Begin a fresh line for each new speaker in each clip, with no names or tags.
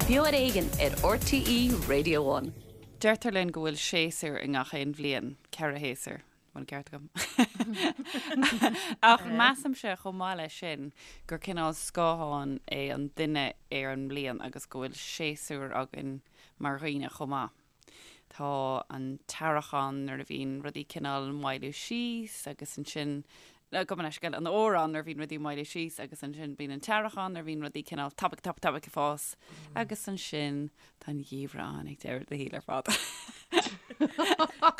Beo ar Éigean ar RTÉ Radio One.
Deirtear linn go bhfuil séasúr i ngach aon bhliain, 4 shéasúr, an bhfuil an ceart agam? Ach measaimse chomh maith leis sin gur cineál scáthán é an duine ar an mbliain agus go bhfuil séasúr againn mar dhaoine chomh maith. Tá an t-earrach ann nuair a bhíonn rudaí cineál maolú síos agus ansin, gabh mo leithscéal, an fhómhar ann nuair a bhíonn rudaí maolú síos agus ansin bíonn an t-earrach ann nuair a bhíonn rudaí cineál tapaidh, tapaidh, tapaidh ag fás agus ansin tá an geimhreadh ann ag deireadh an tsaoil ar fad.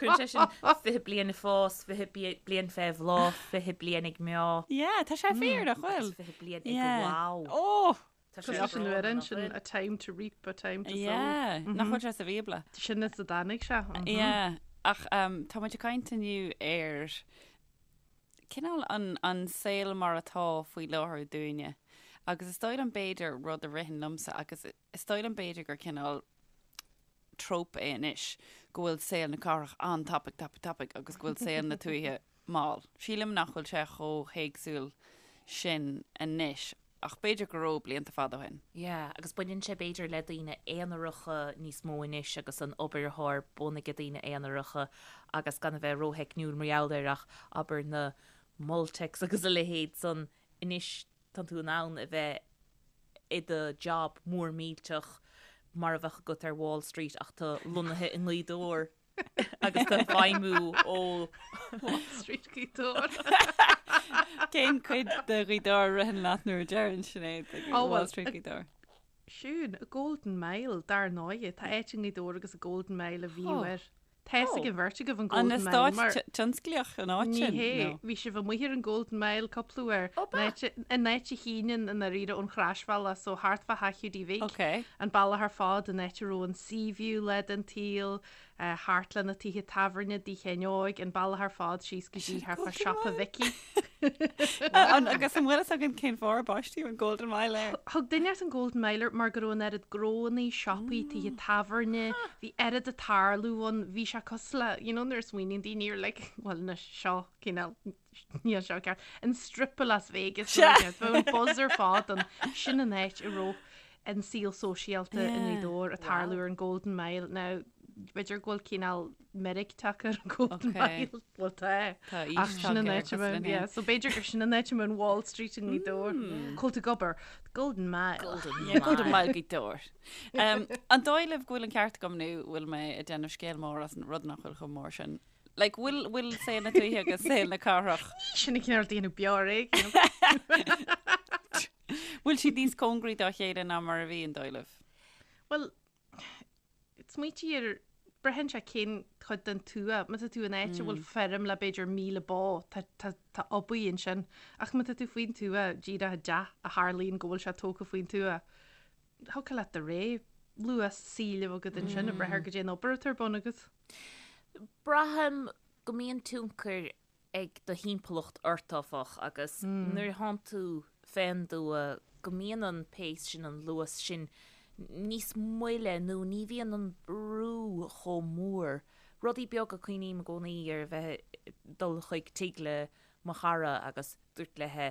Cuireann sé sin 20 bliain ag fás, 20 bliain fé bhláth, 20 bliain ag meá.
Yeah, tá sé fíor, nach bhfuil?
Agus 20 bliain ag wow.
Oh!
Tá sé
Cosúil leis an
breá,
amhrán
nach
sin,
bhfuil?
A time to reap, a time to sow.
Yeah, nach bhfuil sé sa Bhíobla?
Sin as a dtáinig sé.
Yeah, ach tá muid ag caint inniu ar cineál an, an saol mar atá faoi láthair dúinne. Agus is dóigh liom b'fhéidir rud a ritheann liomsa agus is dóigh liom b'fhéidir gur cineál trope é anois go bhfuil saol na cathrach an-tapaidh, tapaidh, tapaidh agus go bhfuil saol na tuaithe mall. Sílim nach bhfuil sé chomh héagsúil sin anois, ach b'fhéidir go raibh blianta fada ó shin.
Yeah, agus baineann sé b'fhéidir le daoine aonaracha níos mó anois agus an obair atá ar bun ag daoine aonaracha agus gan a bheith rótheicniúil mar gheall air ach abair na Multex agus a leithéid san anois tá tú in ann a bheith i do job mór millteach mar a bheadh agat ar Wall Street ach tú lonnaithe i nGaoth Dobhair. agus tú ag feidhmiú ó
Wall Street Gaoth Dobhair.
Cén cuid de Ghaoth Dobhair a ritheann leat nuair a deireann Sinéad ag
Oh,
Wall
well,
Street Gaoth Dobhair?
Siún, Golden Mile, dar ndóighe. Tá áit i nGaoth Dobhair agus an Golden Mile a bhíodh
Oh.
air. Tá fhios ag an bheirt agaibh an
An
Golden Mile
eastát
mar
tionsclaíoch an áit
Ní
sin?
hé,
No.
bhí sibh amuigh ar an Golden Mile cúpla uair.
Ó, ba?
An áit an áit a shíneann i ndáiríre ón Chroisbhealach, so thart fá theach Hiúdaí Bhig.
Ok.
An bealach ar fad, an áit a raibh an Sea View lá den tsaol, thart le na tithe tábhairne dTigh Sheáin Óig, an bealach ar fad síos go dtí thart fá siopa Mhicí.
An, agus an bhfuil fhios againn cén fáth ar baisteadh an Golden Mile air?
Thug duine an Golden Mile air mar go raibh an oiread gnóannaí, siopaí, tithe tábhairne, bhí oiread ag tarlú ann, bhí sé cosúil le, you know nuair a smaoiníonn daoine ar like, bhuel anois seo cineál, níl seo ceart, an Strip i Las Vegas, nó bheadh an buzz ar fad ann, sin an áit a raibh an saol sóisialta i nGaoth Dobhair ag tarlú ar an Golden Mile. Now, b'fhéidir go bhfuil cineál meirg tagtha ar an Golden Mile. Bhuel, tá.
Tá aois
Ach sin an
tagtha air,
áit a
cosúil linn
mbeadh,
féin.
yeah. So b'fhéidir gur sin an áit a mbeadh an Wall Street i nGaoth Dobhair. Cá bhfuil tú ag obair? Golden Mile.
Golden
Yeah, Golden
Mile.
Mile Gaoth Dobhair. Um, an dóigh libh go bhfuil an ceart agam nó bhfuil mé ag déanamh scéal mór as an rud nach bhfuil chomh mór sin? Like, bhfuil, bhfuil saol na tuaithe agus saol na cathrach?
Sin an cineál ag déanamh beo ar éigean.
Bhfuil siad níos cóngaraí dá chéile ná mar a bhí, an dóigh libh?
Bhuel, smaoitigh ar, braitheann sé cén chuid den tuath. Má tá tú in áit a bhfuil feirm le b'fhéidir 1,000 bó, tá, tá, tá obair ansin. Ach má tá tú faoin tuath, díreach i dteach a tharlaíonn go bhfuil sé tógtha faoin tuath, thiocfadh leat do rogha luas saoil a bheith agat ansin, ag brath ar goidé an obair atá ar bun agat.
Braithim go mbíonn tionchar ag do thimpeallacht ort, áfach, agus nuair a thánn tú fén dtuath go mbíonn an pace sin, an luas sin níos moille nó ní bhíonn an brú chomh mór. Rudaí beaga, cuimhním i gcónaí ar a bheith ag dul chuig tigh le mo chara agus dúirt léithe,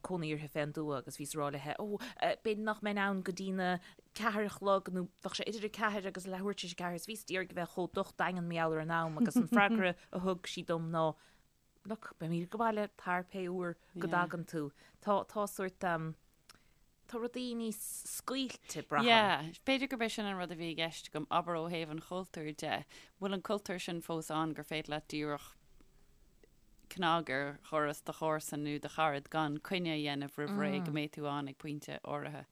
cónaí uirthi fén dtuath agus bhíos ag rá léithe, ó, b'fhéidir nach mbeinn ann go dtí na ceathair a chlog nó bheadh sé idir a ceathair agus leathuair tar éis a ceathair is bhíos d'iarraidh a bheith chomh docht daingean mar gheall ar an am agus an freagra a thug sí dom ná, look, beimid ag baile tar pé uair go dtagann tú. Tá, tá sórt, tá rudaí níos scaoilte, braithim.
Yeah, b'fhéidir gurb é sin an rud a bhí i gceist agam, abair ó thaobh an chultúir de, bhfuil an cultúr sin fós ann gur féidir leat díreach cnag ar dhoras do chomharsan nó do charad gan coinne a dhéanamh roimh ré go mbeidh tú ann ag pointe áirithe.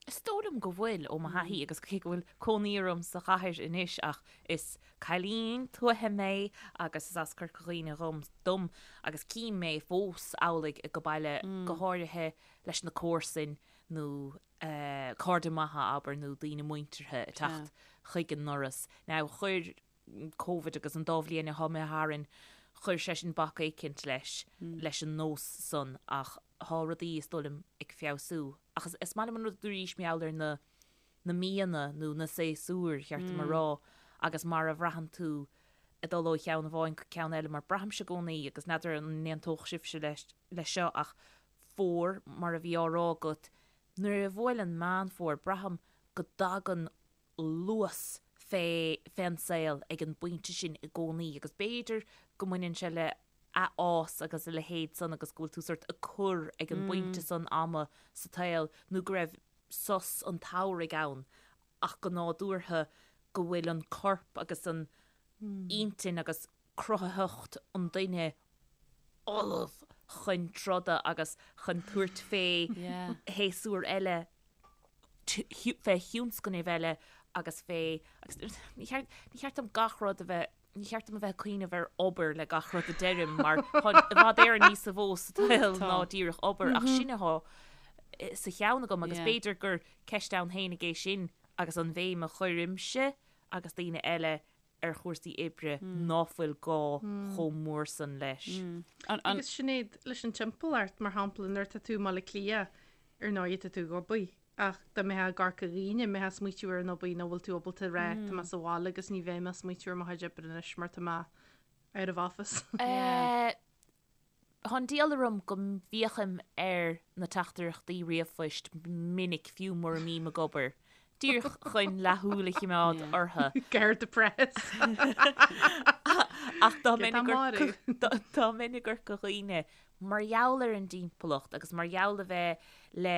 Is dóigh liom go bhfuil, ó mo thaithí, agus cé go bhfuil cónaí orm sa chathair anois ach is cailín tuaithe mé agus is as Corca Dhuibhne dhom, dom agus cím mé fós amhlaidh ag baile, go háirithe leis na comharsain nó cairde maithe, abair, nó daoine muinteartha ag teacht chuig an ndoras. Now, chuir Covid agus an dá bhliain atá imithe tharainn, chuir sé sin bac éicint leis, leis an nós san ach thá rudaí, is dóigh liom, ag feabhsú. Ach is, is maith liom an rud a dúraís mar gheall ar na, na míonna nó na séasúir, cheart dom a rá, agus mar a bhraitheann tú ag dul ó cheann amháin go ceann eile, mar braithimse i gcónaí, agus n'fheadar an n-aontódh sibhse leis, leis seo, ach fómhar, mar a bhí á rá agat, nuair a bhuaileann Meán Fómhair, braithim. go dtagann luas fé fén saol ag an bpointe sin i gcónaí agus b'fhéidir go mbaineann sé le athfhás agus a leithéid san agus go bhfuil tú sort ag cur ag an bpointe san ama sa tsaol nó go raibh sos an tsamhraidh ann ach go nádúrtha go bhfuil an corp agus an intinn agus cruthaitheacht an duine ullamh chun troda agus chun tabhairt fé shéasúr eile, fé thionscnaimh eile agus fé, agus ní cheart, ní cheart dom gach rud a bheith, ní cheart dom a bheith ag cuimhneamh ar obair le gach rud a deirim mar tá i bhfad Éireann níos mó sa tsaol ná díreach obair ach sin atá sa cheann agam agus b'fhéidir gur ceist ann fhéinig é sin agus an bhéim a chuirimse agus daoine eile ar chúrsaí oibre ná fuil gá chomh mór san leis.
Agus Sinéad, leis an timpeallacht, mar shampla, nuair atá tú i mBaile Átha Cliath, ar ndóigh tá tú ag obair, ach dá mbeifeá i gCorca Dhuibhne, an mbeifeá ag smaoitiú ar an obair nó bhfuil tú ábalta a rá, tá mé sa bhaile agus ní bheidh mé ag smaoitiú ar mo chuid oibre anois mar tá mé out of office.
Tá an diabhal orm go bhféachaim ar na teachtaireachtaí ríomhphoist minic fiú mura mbím ag obair, díreach chun leathshúil a chimeád orthu.
Guard the press.
Ach dá mbeinn i gCorca Dhuibhne, mar gheall ar an dtimpeallacht agus mar gheall a bheith le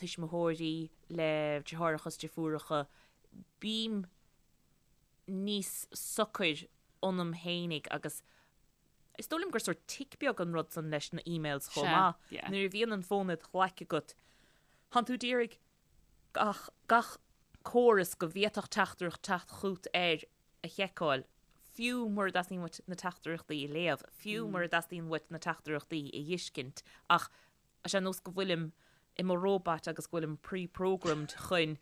tuismitheoirí, le deartháireacha is deirfiúracha, bím níos socair ionam fhéinig agus Is dóigh liom gur sórt tic beag an rud san leis na emails chomh maith. Nuair a bhíonn an fón id ghlaic agat, tánn tú d'iarraidh gach, gach córas go bhféadfadh teachtaireacht teacht chút air a sheiceáil, fiú mura dteastaíonn uait na teachtaireachtaí a léamh, fiú mura dteastaíonn uait na teachtaireachtaí a fheiscint, ach Tá sé ar nós go bhfuilim i mo róbat agus go bhfuilim pre-programmed chun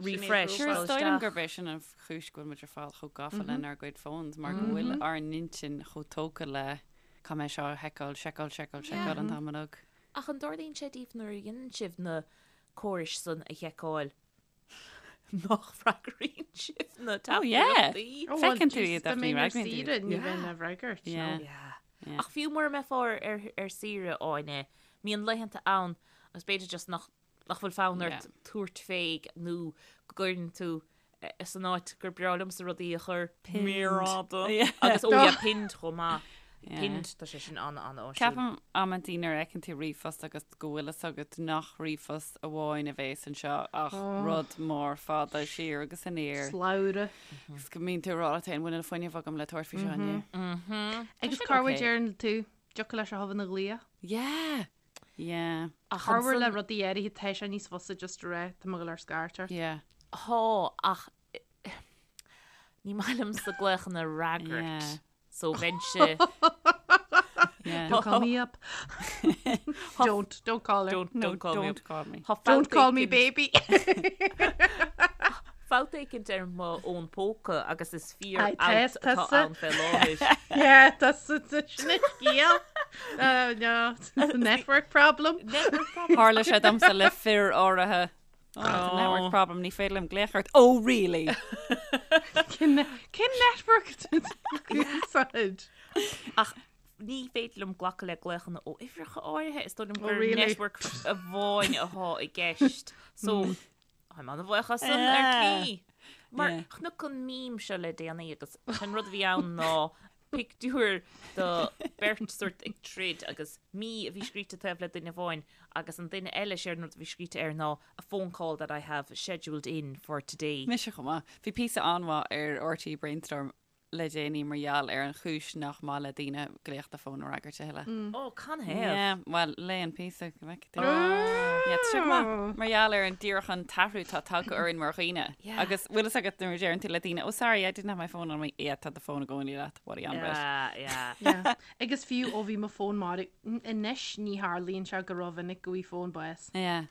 refresh
Sure, is dóigh liom gurb é sin an chúis go bhfuil muid ar fad chomh gafa lenár gcuid phones mar go bhfuil ár n-intinn chomh tógtha le caithfidh mé seo a sheiceáil, seiceáil, seiceáil, seiceáil an t-am uilig.
Ach an dtarlaíonn sé daoibh nuair a dhéanann sibh na córais san a sheiceáil nach bhfreagraíonn sibh na
Oh yeah!
teachtaireachtaí?
Oh, well,
Feiceann tú
Jesus,
iad
dá
ach ní
mbeinn ar
fhreagraíonn tú
saoire,
iad.
ní bheinn á bhfreagairt, no.
Yeah.
Yeah.
Yeah.
Ach fiú mura mbeifeá ar, ar, ar saoire, Áine, mbíonn laethanta ann agus b'fhéidir just nach, nach bhfuil fonn ort
Yeah.
tabhairt fé nó go gcuireann tú eh, san áit gur breá liomsa rudaí a chur
Pinned.
méar fhada
Yeah.
agus ó yeah, pinned chomh maith.
Yeah.
Pinned, tá sé sin an-an-áisiúil.
Ceapaim amantaí nuair a fheiceann tú ríomhphost agus go bhfuil fhios agat nach ríomhphost amháin a bhéas anseo ach rud mór fada siar agus aniar.
Slabhra.
Agus go mbíonn tú ag rá leat féin, bhfuil an fuinneamh agam le tabhairt faoi seo inniu.
Agus
sin
corruair
okay.
deireann tú, dtiocfadh leis a thobha na ghlaoch.
Yeah! Yeah.
Ach
Corruair le
ansan-
rudaí áirithe tá sé níos fusa just a rá, tá mé ag dul ar scairt ort.
Yeah.
Thá, ach ní maith liomsa glaochanna a fhreagairt.
Yeah.
So bheinnse
Yeah.
Don't call me up. Don't, don't call her.
Don't,
No,
don't call me
don't
up.
call me.
Tá
Don't
fabht
call me
éicint-
baby.
Fabht éicint ar mo fhón póca agus is fíor
Aye,
fhabht
tá-
atá
tá-
ann fé láthair.
Yeah, that's the sin an scéal. Uh, no, it's a network problem.
Network problem.
Tharla sé domsa le fir áirithe. Oh, it's a network problem, ní féidir liom glaoch ort. Oh, really?
Cén cén network úsáid?
Ach ní féidir liom glacadh le glaochanna ó uimhreacha áirithe, is dóigh liom
Oh,
gur
really?
network amháin atá i gceist. So, táim an-bhuíoch as san ar
Yeah.
tslí. Mar
Yeah.
chonac an meme seo le déanaí agus an rud a bhí ann ná pictiúr de beirt sórt ag troid agus me a bhí scríte taobh le duine amháin agus an duine eile séard an rud a bhí scríte air ná a phone call that I have scheduled in for today.
Mise chomh maith. Bhí píosa an-mhaith ar RTÉ Brainstorm le déanaí mar gheall ar an chúis nach maith le daoine glaoch fóin a fhreagairt a thuilleadh.
Ó, canathaobh?
Yeah, bhuel, léigh an píosa go bhfeicfidh tú. Yeah, tá sé go maith. Mar gheall ar an díreach an t-athrú atá tagtha orainn mar dhaoine.
Yeah.
Agus bhfuil fhios agat nuair a deireann tú le daoine, oh sorry, I didn't have my phone on me. Yeah, tá do fón i gcónaí leat. What are you on about?
Yeah, yeah.
Yeah. Agus fiú ó bhí mo fón marbh, anois ní tharlaíonn sé go rómhinic go bhfaighidh fón bás
Yeah.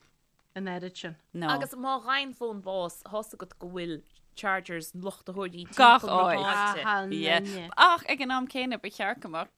an oiread sin.
No.
Agus má fhaigheann fón bás, tá's agat go bhfuil chargers luchtaitheoirí
Gach
timpeall na
áit.
háite.
Aha,
Yeah.
nine.
Ach ag an am céanna ba cheart go mbeadh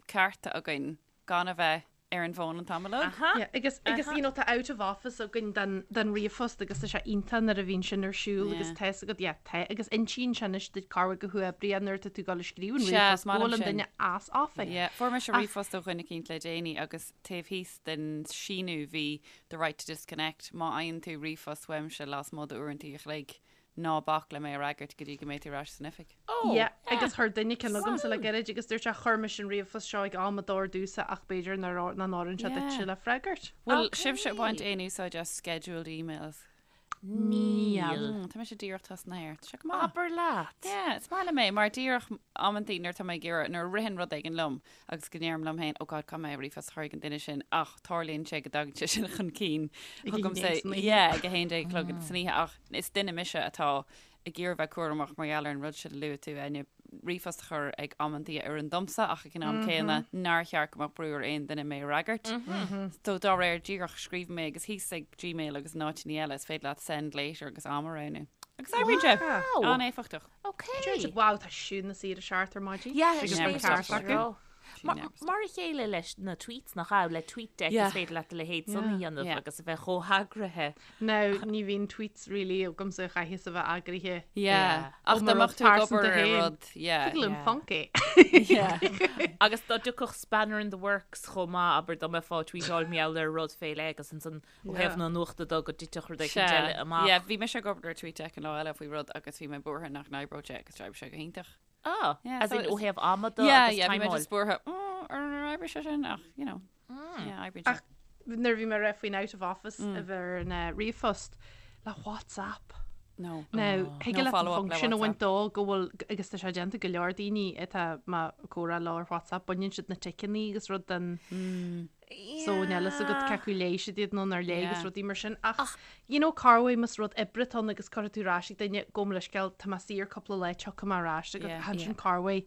cearta againn gan a bheith. ar an bhfón an t-am uilig.
Aha.
Yeah, agus agus you know tá out of office againn den den ríomhphost agus tá sé iontach nuair a bhíonn sin ar siúl agus
Yeah.
tá fhios agat yeah tá agus insíonn sé anois duit cá bhfuil go huathoibríoch nuair atá tú ag dul ag scríobh an
Sea,
ríomhphost
is maith
go
liom
bhfuil an
sin.
duine as office.
Yeah, fuair mise
Ach-
ríomhphost ó dhuine eicínt le déanaí agus taobh thíos den síniú bhí the right to disconnect, má fhaigheann tú ríomhphost uaimse lasmuigh d'uaireanta a chloig, ná bac le mé a fhreagairt go dtí go mbeidh tú ar ais san oifig.
Oh,
Yeah, agus chuir duine ceann chugamsa le gairid agus dúirt sé chuir mise an ríomhphost seo ag am a d'oir domhsa ach b'fhéidir nach n-oireann sé duitse
Yeah.
le freagairt.
Bhfuil
Okay.
sibhse ag baint aon úsáid as scheduled emails?
Níl.
Mm, tá mise díreach tosnaithe air. Tá sé go maith.
Abair leat.
Yeah, is maith liom é, mar díreach amantaí nuair atá mé ag iarraidh, nuair a ritheann rud éigin liom agus go ndeirim liom féin, oh God, caithfidh mé ríomhphost a chur ag an duine sin, ach tarlaíonn sé go dtagann sé sin chun cinn
Ag a
chugamsa,
haon déag san oíche.
yeah, ag a haon déag a chlog san oíche, ach is duine mise atá ag iarraidh bheith cúramach mar gheall ar an rud sin a luaigh tú, Áine, ríomhphost a chur ag amantaí a oireann domsa ach ag an am céanna nár cheart go mbeadh brú ar aon duine mé a fhreagairt. So dá réir díreach scríobh mé agus thíos ag Gmail agus in áiteanna eile is féidir leat send later agus am a roghnú. Agus oibríonn sé!
Wow.
An-éifeachtach.
Okay.
Dúirt siad, Wow, tá siúd na saoire seart ar maidin.
Yeah,
Agus
sin
never
é
stop
ceart
working.
acu.
She never stops.
Mar a chéile leis na tweets nach ea, le TweetDeck
Yeah.
is féidir leat a leithéid san a dhéanamh
Yeah.
agus a bheith chomh heagraithe.
Now, ní bhíonn tweets really agamsa a chaithfeas a bheith eagraithe.
Yeah.
Yeah.
Ach
Ó,
dá
mar
mbeadh
rud
tú ag obair
pearsanta
ar
féin.
rud, yeah.
Thig liom
Yeah.
func é.
Yeah.
Agus dá dtiocfadh spanner in the works chomh maith, abair dá mbeifeá ag tweetáil mar gheall ar rud fé leith agus ansan ó thaobh
Yeah.
na nuachta de go dtitfeadh rud éicint
Sea.
eile amach.
Yeah, bhí mise ag obair ar TweetDeck an lá eile faoi rud agus bhí mé buartha nach n-oibreodh sé agus d'oibrigh sé go hiontach.
Ah,
Yeah,
as
so
in ó
it's-
thaobh ama de
Yeah,
agus
yeah, bhí mé
timeáil.
just buartha, "Oh, ar ar oibrigh sé sin ach, you know, yeah, oibríonn sé.
Ach nuair a bhí mé ag rá faoin out of office a bheith ar an eh, ríomhphost le WhatsApp.
No.
Now, thig
No
leat an
follow-up le
function a bhaint
WhatsApp.
dó go bhfuil, agus tá sé déanta go leor daoine atá mé ag comhrá leo ar WhatsApp, baineann siad na ticeanna agus rud den So níl a fhios agat cé acu léigh siad iad nó nár léigh agus
Yeah.
rudaí mar sin. Ach, you know, corruair más rud oibre atá ann agus cuirfidh tú ar ais ag duine gabh mo leithscéal, tá mé saor cúpla lá tiocfaidh mé ar ais agat.
Yeah.
Ansin corruair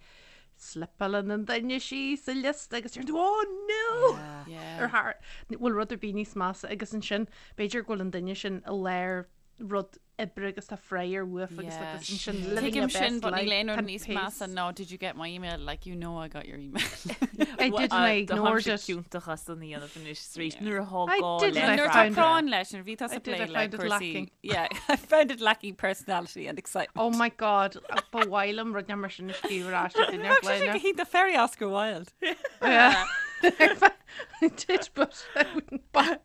slipeálann an duine síos sa liosta agus deireann tú, oh no!
Yeah.
Ar thar, bhfuil rud ar bith níos measa agus ansin b'fhéidir go bhfuil an duine sin i lár rud oibre agus tá frayar uafa agus
Yeah.
like ansin living your
Tuigim sin,
best
but níl
life,
aon rud
tá
níos
pace.
measa ná did you get my email? Like you know I got your email.
I did and I ignored it.
Ciontach as an dhéanamh anois arís nuair atá
I
gá
did
le
and I
Nuair atá
found it.
práinn leis, nuair a bhí tusa
I did, I
plé le
found it
cúrsaí.
lacking.
Yeah, I found it lacking personality and excitement.
Oh my god, ba mhaith liom rud mar sin a scríobh ar ais ag duine ar
Bheadh sé
bhlaine.
go hiontach very Oscar Wilde.
Yeah. I did, but I wouldn't buy.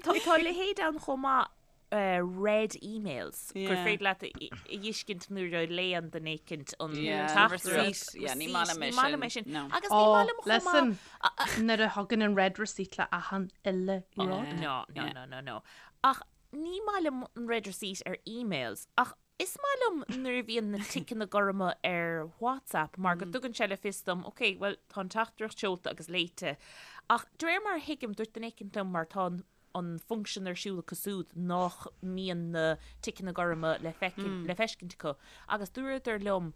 Tá tá leithéid ann chomh maith read emails gur
Yeah.
féidir leat a fheiscint nuair a léann duine éicint an
Yeah,
teachtaireacht.
receipt. Yeah, ní maith liom é
Ní maith liom é
sin.
sin.
No.
Agus ní
Oh,
maith liom chomh maith.
listen, nuair a thagann an read receipt le achan uile rud.
Yeah.
No, no,
Yeah.
no, no, no. Ach ní maith liom an read receipt ar emails, ach is maith liom nuair a bhíonn na ticeanna gorma ar WhatsApp mar go dtugann sé le fios dom, ok, well, tá an teachtaireacht seolta agus léite. Ach de réir mar a thuigim, dúirt duine éicint liom mar tá an an function ar siúl acu siúd nach mbíonn na ticeanna gorma le feicin, le feiscint acu agus dúradar liom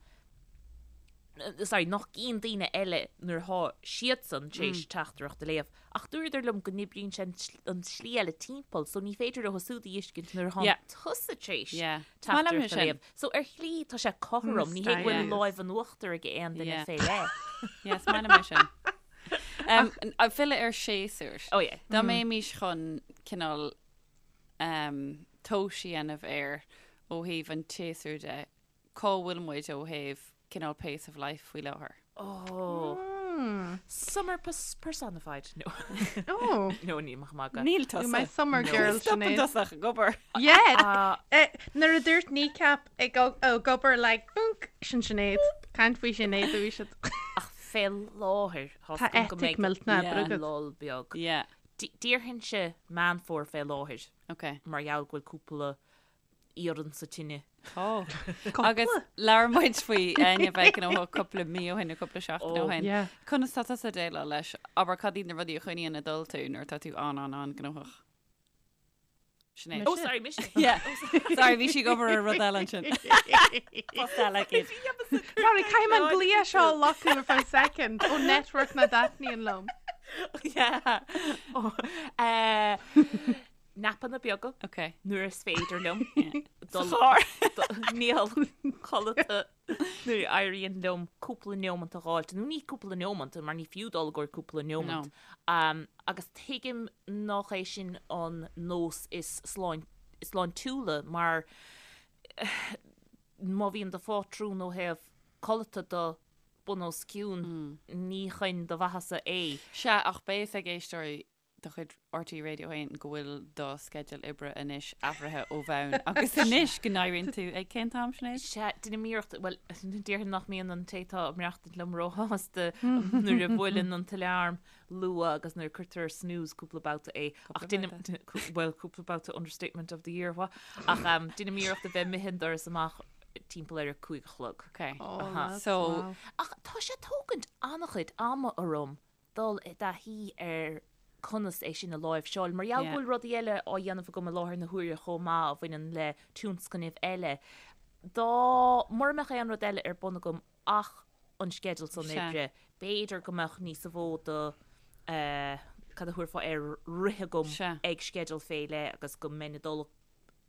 sorry, nach gcíonn daoine eile nuair atá siadsan tar éis teachtaireacht a léamh ach dúradar liom go n-oibríonn sé an tsl- an tslí eile timpeall so ní féidir leo siúd a fheiscint nuair atá
Yeah.
tusa tar éis
Yeah. Is maith liom
teachtaireacht a
sin.
léamh. So ar shlí tá sé cothrom, ní hé go bhfuil
Mysterious.
láimh an uachtair ag aon duine
Yeah.
fé leith.
Yeah, is maith liom é sin. Um, ag filleadh ar séasúr.
Oh yeah.
Dá mbeimis chun cineál um, tomhas a dhéanamh air ó thaobh an tséasúir de, cá bhfuil muid ó thaobh cineál pace of life faoi láthair?
Oh. Summer pers personified. No.
Oh,
No, ní maith magadh.
Níl
you're my
tusa.
summer girl,
Stop an
Sinéad.
dosach ag obair.
Yeah.
Ah.
Eh, Nuair a dúirt kneecap ag ag obair like bunk sin Sinéad. Caint faoi Sinéad a bhí siad.
Ach fé láthair
Tá
tá go
eitic
mbeidh
millteanach
Yeah.
agat.
lull beag.
Yeah,
Déarfainnse Meán Fómhair fé láthair
okay.
mar gheall go bhfuil cúpla iarann sa tine.
Tá. Agus labhair muid faoi Áine bheith gnóthach cúpla mí ó shin nó cúpla seachtain ó
Oh,
shin.
yeah.
Conas tá tusa ag déileáil leis? Abair cad iad na rudaí a choinníonn ag dul tú nuair atá tú an an an gnóthach? Sinéad.
Oh, sorry, mise.
Yeah. Sorry, bhí sí ag obair ar rud eile ansin. Post eile aici.
Sorry, caithfidh mé an glao seo a locadh ar feadh second ó network nach dtaitníonn liom.
Yeah. Oh, eh, napanna beaga
Okay.
nuair is féidir liom.
Sa
Dul-
charr.
Níl codlata. Nuair a éiríonn liom cúpla neomant a dh'fháilt, nó ní cúpla neomant, mar ní fiú dul i gcomhair cúpla neomant, agus tuigim nach é sin an nós is sláintiúla mar má bhíonn do phátrún ó thaobh codlata de bun os cionn, ní chun do mhaitheasa é.
Sea, ach beidh fhios ag éisteoirí de chuid RTÉ Radio 1 go bhfuil do sceideal oibre anois athraithe ó bhonn agus anois go n-éiríonn tú ag cén t-am, Sinéad?
Sea, déanaim iarracht, bhuel, déarfainn nach mbíonn an té atá ag maireachtaint liom róshásta nuair a bhuaileann an t-alarm luath agus nuair a cuirtear ar snooze cúpla babhta é. Ach déanaim, bhuel, cúpla babhta understatement of the year, what? Ach déanaim iarracht a bheith imithe an doras amach timpeall ar a 5 a chlog.
Ok.
Oh,
So,
Ach tá sé ag tógaint an-chuid ama orm dul i dtaithí ar conas é sin a láimhseáil. Mar gheall go bhfuil rudaí eile á dhéanamh agam i láthair na huaire chomh maith a bhaineann le tionscnaimh eile. Dá mura mbeadh aon rud eile ar bun agam ach an sceideal san oibre, b'fhéidir go mbeadh níos mó de cad a thabharfá air rith agam ag sceideal fé leith agus go mbeinn ag dul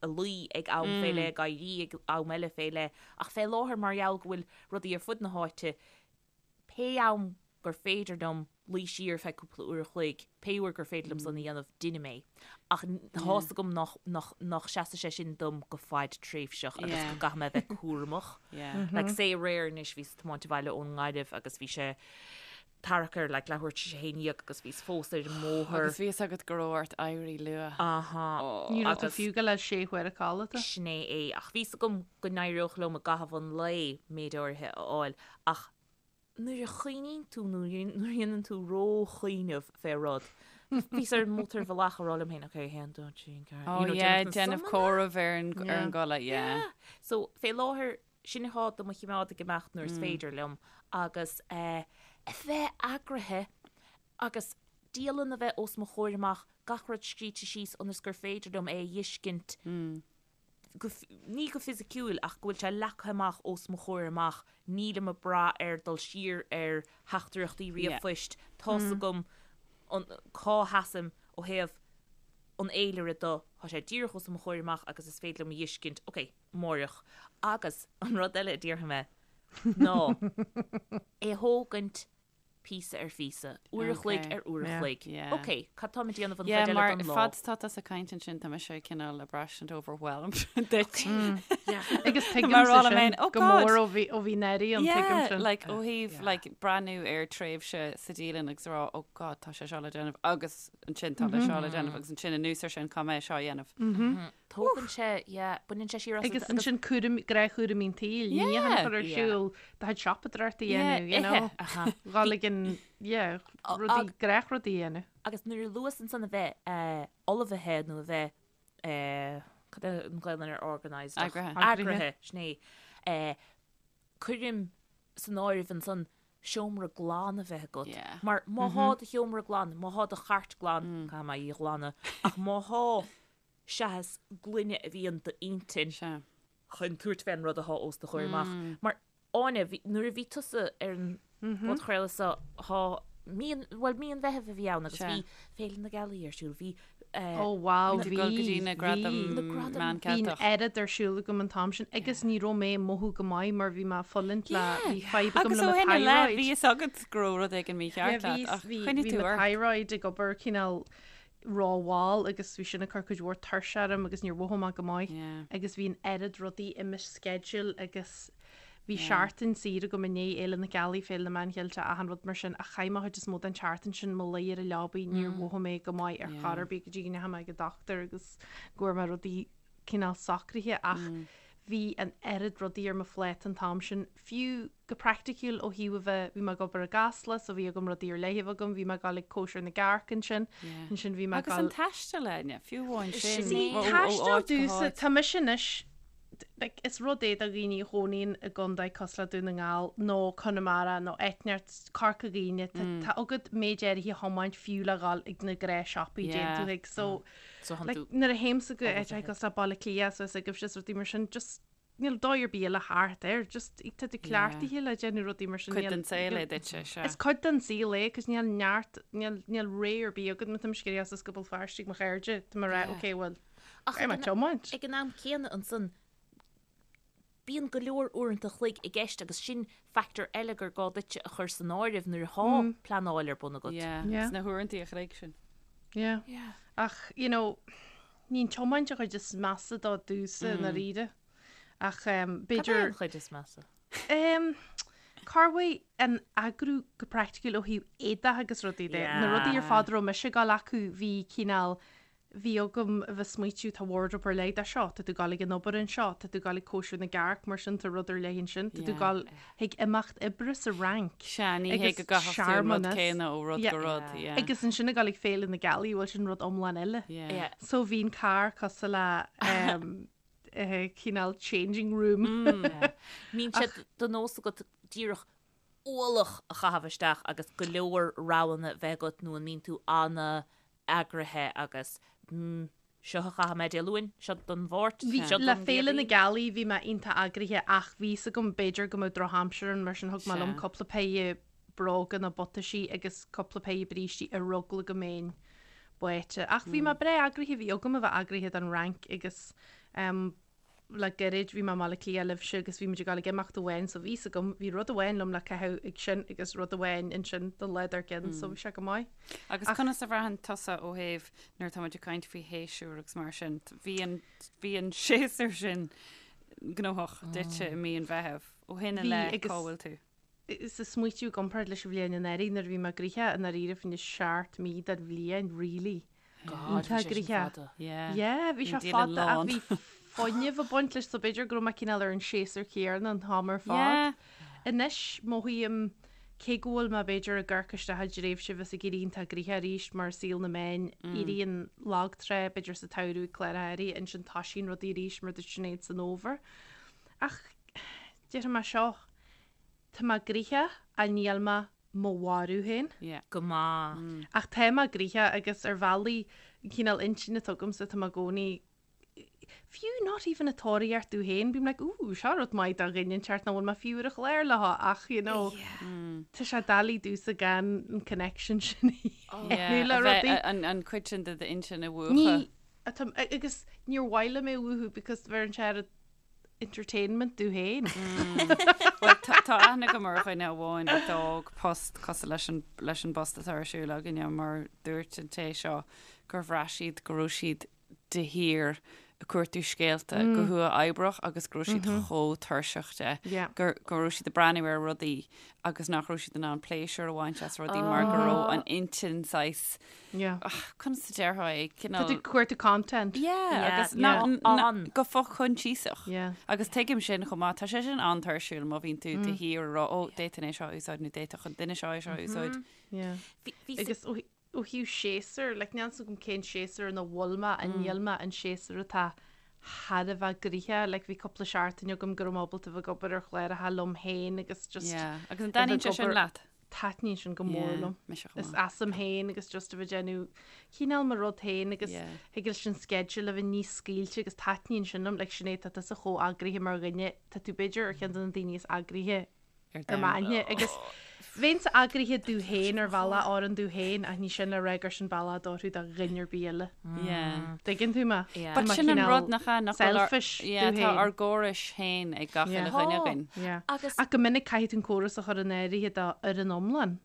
a luí ag am fé leith, ag éirí ag am eile fé leith. Ach fé láthair mar gheall go bhfuil rudaí ar fud na háite, pé am gur féidir liom luí siar feadh cúpla uair a chloig, pé uair gur féidir liom san a dhéanamh, deinim é. Ach tá's agam nach, nach, nach seasfaidh sé sin dom go fadtréimhseach agus go gcaithfidh mé a bheith cúramach. Like say aréir anois bhíos ag tiomáint abhaile ón nGaillimh agus bhí sé tarrac ar like leathuair tar éis a haon dhéag agus bhíos fós ar an mbóthar.
Agus bhí fhios agat go raibh ort éirí luath.
Aha.
Ní raibh tú fiú ag gabháil sé huaire codlata.
Sin é é. Ach bhí's agam go n-éireodh liom i gcaitheamh an lae méid áirithe a fháil ach nuair a chuimhníonn tú nó nuair a dhéanann tú ró-chuimhneamh fé rud, bhíos ar an mótarbhealach ag rá liom féin, ok, 1, 2, 3, 4,
Oh
you know,
yeah,
déanamh na
déanamh
sumanna.
comhaireamh ar an ar an
Yeah.
gcodladh, yeah.
Yeah. So, fé láthair, sin atá do mo chimeád ag imeacht nuair is féidir liom agus eh, a bheith eagraithe agus dialann a bheith os mo chomhair amach, gach rud scríte síos ionas gur féidir liom é a fheiscint go, ní go fisiciúil ach go bhfuil sé leagtha amach os mo chomhair amach, nílim ag brath ar dul siar ar theachtaireachtaí ríomhphoist, tá's agam an, cá sheasaim ó thaobh an fhéilire de, tá sé díreach os mo chomhair amach agus is féidir liom a fheiscint, ok, amáireach. Agus an rud eile a déarfaidh mé ná é a thógaint píosa ar phíosa, uair a chloig ar uair a chloig. Ok, cad táim ag déanamh an chuid eile
mar
den lá?
fad tá tusa ag caint ansin tá mise cineál ag braistint overwhelmed duit.
Agus tuigim
Mar
sa
rá
sin
oh
go mór ó bhí ó bhí Neri an tuigim
Yeah,
sin.
like ó thaobh like breathnú ar tréimhse sa dialann agus rá oh God tá sé seo le déanamh agus ansin tá le seo le déanamh agus ansin anuas ar sin caithfidh mé seo a dhéanamh.
Tógann sé, yeah, baineann sé siar asat
Agus ansin cúram, gnáthchúraimí an tsaoil,
Yeah.
níocháin a chur ar
Yeah.
siúl, do chuid siopadóireachta a
Yeah,
dhéanamh, you know.
Aha.
Dhul ag an, yeah, rudaí, gnáthrudaí a dhéanamh.
Agus nuair a luas ansan a bheith eh, ullmhaithe nó a bheith eh, cad é an Ghaelainn ar organised? ach-
Eagraithe.
Eagraithe, sin é. Eh, cuirim san áireamh ansan seomra glan a bheith agat.
Yeah.
Mar má thá do sheomra glan, má thá do chairt glan, caithfidh mé í a ghlanadh, ach má thá seachas glaine a bhíonn d'intinn
Sea.
chun tabhairt fén rud athá os do chomhair amach. Mar, Áine, bhí, nuair a bhí tusa ar an bpodchraoladh seo, thá, mí an, bhuel, mí an Mheithimh a bhí ann agus
Sea.
bhí Féile na Gealaí ar siúl, bhí eh,
Ó wow,
Bhí
bhí,
go dtí na
bhí.
gradaim
Na gradaim.
Meán
Bhí an
Ceilteach.
oiread ar siúl agam an t-am sin agus ní raibh mé ag mothú go maith mar bhí mé ag fulaingt le, bhí fadhb agam
Agus
le
ó
mo
shin i leith,
thyroid.
bhí fhios agat go raibh rud éigin mícheart
Yeah, bhí,
leat ach
bhí,
choinnigh
bhí
tú
mo
ort.
thyroid ag obair cineál rómhall agus bhí sin ag cur cuid mhór tuirse orm agus níor mhothaigh mé go maith
Yeah.
agus bhí an oiread rudaí i mo schedule agus bhí seachtain saor agam i ndiaidh Fhéile na Gealaí, Féile na Meán Cheilteach, achan rud mar sin ach chaith mé chuid is mó den tseachtain sin mo luí ar an leabaidh, níor mhothaigh mé go maith ar chor ar bith go dtí go ndeachaigh mé ag an dochtúir agus go bhfuair mé rudaí cineál socraithe ach bhí an oiread rudaí ar mo phláta an t-am sin, fiú go praiticiúil ó thaobh a bheith, bhí mé ag obair i gCasla so bhí agam rudaí ar leith a bheith agam, bhí mé ag dul ag cóisir na gcearc ansin, ansin bhí mé ag
Agus an
dul.
taisteal, Áine, fiú amháin sin,
See,
ó
taisteal
áit go
domhsa,
háit.
tá mise anois, like, is rud é do dhaoine a chónaíonn i gcontae cosúil le Dún na nGall nó Conamara nó áit inteacht, Corca Dhuibhne, tá, tá agat méid áirithe a thiomáint fiú le dhul ag na gnáthshiopaí
Yeah.
déan tú thuig, so,
So
like,
tú
nuair a théimse go áit cosúil le Baile Átha Cliath so is agaibhse is rudaí mar sin, just níl dóigh ar bith eile thart air, just tá tú cleachtaithe le déanamh rudaí mar sin.
Cuid
níl-
den saol é
níl-
duitse, sea.
Is cuid den saol é, cos níl neart, níl, níl ré ar bith agat má tá mise ag iarraidh as go Béal Feirste ag mo chairde, tá mé ag rá,
Yeah.
ok, well,
Ach
beidh mé
ag an-
tiomáint.
ag an am céanna ansan. Bíonn go leor uaireanta a chloig i gceist agus sin factor eile gur gá duitse a chur san áireamh nuair atá pleanáil ar bun agat.
Yeah,
Yeah.
sna huaireanta a chloig sin.
Yeah.
Yeah.
Ach, you know, ní an tiomáint an chuid is measa dó domhsa i ndáiríre. Ach um,
Cad é
b'fhéidir...
an chuid is measa?
Um, Corruair an eagrú go praiticiúil ó thaobh éadach agus rudaí de. Na rudaí ar fad a raibh mise ag dul acu bhí cineál bhí agam a bheith smaoitiú tá wardrobe ar leith de seo, tá tú ag dul ag an obair anseo, tá tú ag dul ag cóisir na gcearc mar sin tá rud ar leith ansin, tá tú ag dul chuig imeacht oibre sa Fhrainc.
Sea, ní hé go gcaithfeadh tú an rud céanna ó rud go rud, yeah.
Agus ansin ag dul ag Féile na Gealaí, bhuel sin rud iomlán eile.
Yeah.
So bhí an carr cosúil le um, cineál changing room.
Mbíonn sé de nós agat díreach ualach a chaitheamh isteach agus go leor roghanna bheith agat nó an mbíonn tú ana eagraithe agus seo a chaithfidh mé Dé Luain, seo don Mháirt, seo
Le
don
Féile na
Chéadaoin.
Gealaí bhí mé iontach eagraithe ach bhí fhios agam b'fhéidir go mbeadh drochaimsir ann mar sin thug mé liom cúpla péire bróga nó butaisí agus cúpla péire brístí ar eagla go mbeinn báite. Ach bhí mé breá eagraithe, bhí agam a bheith eagraithe don Fhrainc agus le gairid bhí mé i mBaile Átha Cliath libhse agus bhí muid ag dul ag imeacht amháin so bhí fhios agam, bhí rud amháin liom le caitheamh ag sin agus rud amháin ansin don lá dár gcionn so bhí sé go maith.
Agus conas a bhraitheann tusa ó thaobh nuair atá muid ag caint faoi shéasúr agus mar sin, bhí an, bhí an séasúr sin gnóthach duitse i mí an Mheithimh. Ó shin i leith cá bhfuil tú?
Is ag smaoitiú i gcomparáid leis an bhliain anuraidh nuair a bhí mé gnoitheach i ndáiríre fá choinne seacht mí den bhliain really.
God, bhí sé sin fada.
Yeah.
Yeah, bhí sé fada ach bhí fuinneamh ag baint leis so b'fhéidir go raibh mé cineál ar an séasúr céanna an t-am ar fad. Anois mothaím cé go bhfuil mé b'fhéidir ag amharc isteach i dtréimhse bheas ag éirí iontach gnoitheach arís mar saol na meán éiríonn lagtrá b'fhéidir sa tsamhradh ag cláracha áirithe ansin toisíonn rudaí arís mar dúirt Sinéad san fhómhar. Ach déarfaidh mé seo, Tá mé gnoitheach ach níl mé mo mharú féin.
Yeah.
Go maith.
Ach tá mé gnoitheach agus ar bhealaí, an cineál intinne atá agamsa, tá mé i gcónaí, fiú not even ag tóraíocht domh féin, bím like ooh, seo rud maith do dhuine inteacht nach bhfuil mé fiú ar an chlár leo ach you know, tá sé doiligh domhsa gan an connection sin a dhéanamh le rudaí.
An cuid sin de d'intinn a mhúchadh.
Ní, agus níor mhaith liom é a mhúchadh because bheireann sé ar entertainment domh féin.
Bhuel, tá aithne agam ar dhuine amháin a d'fhág post cosúil leis an, leis an bpost atá ar siúl againne mar dúirt an té seo gur bhraith siad go raibh siad de shíor ag cuartú scéalta go huathoibríoch agus go raibh siad chomh tuirseach de gur, go raibh siad ag breathnú ar rudaí agus nach raibh siad in ann pléisiúr a bhaint as rudaí mar go raibh an intinn saghas
Yeah.
Ach, conas a déarfá é?
Tá tú ag cuartú content.
Yeah,
Yeah,
agus
yeah.
na,
An.
go fochoinsiasach.
Yeah.
Agus tuigim sin chomh maith, tá sé sin an-tuirsiúil má bhíonn tú de shíor ag rá, ó, d'fhéadfainn é seo a úsáid nó d'fhéadfadh an duine seo é seo a úsáid.
Yeah.
Bhí, bhí
Agus ó ó thaobh séasúr, like, níl 's agam cén séasúr ina bhfuil mé, an níl mé an séasúr atá thar a bheith gnoitheach, like, bhí cúpla seachtain agam go raibh mé ábalta bheith ag obair ar chláracha liom féin agus just
Yeah. Agus an
a bheith
dtaitníonn
ag
sé sin
obair-
leat?
Taitníonn sin go mór
Yeah,
liom.
mise chomh
Is
maith.
asam féin agus just a bheith ag déanamh cineál mo rud féin agus
Yeah.
thig leis an schedule a bheith níos scaoilte agus taitníonn sin liom. Like Sinéad, tá tusa chomh eagraithe mar dhuine, tá tú b'fhéidir ar cheann de na daoine is eagraithe
Ar
ar
domhan.
m'aithne agus bheinnse eagraithe domh féin ar bhealach oireann domh féin ach ní sin le rá gur sin bealach a d'oirfeadh do dhuine ar bith eile.
Yeah.
Tuigeann tú mé?
Yeah.
Tá
But
mé
sin an
cineál
rud nach ea, nach bhfuil ár-
selfish
Yeah,
domh
tá
féin.
ár gcórais féin ag gach
Yeah.
uile dhuine againn.
Yeah.
Agus
Ach go minic caithfidh tú an córas a chur in áirithe do fhoireann iomlán.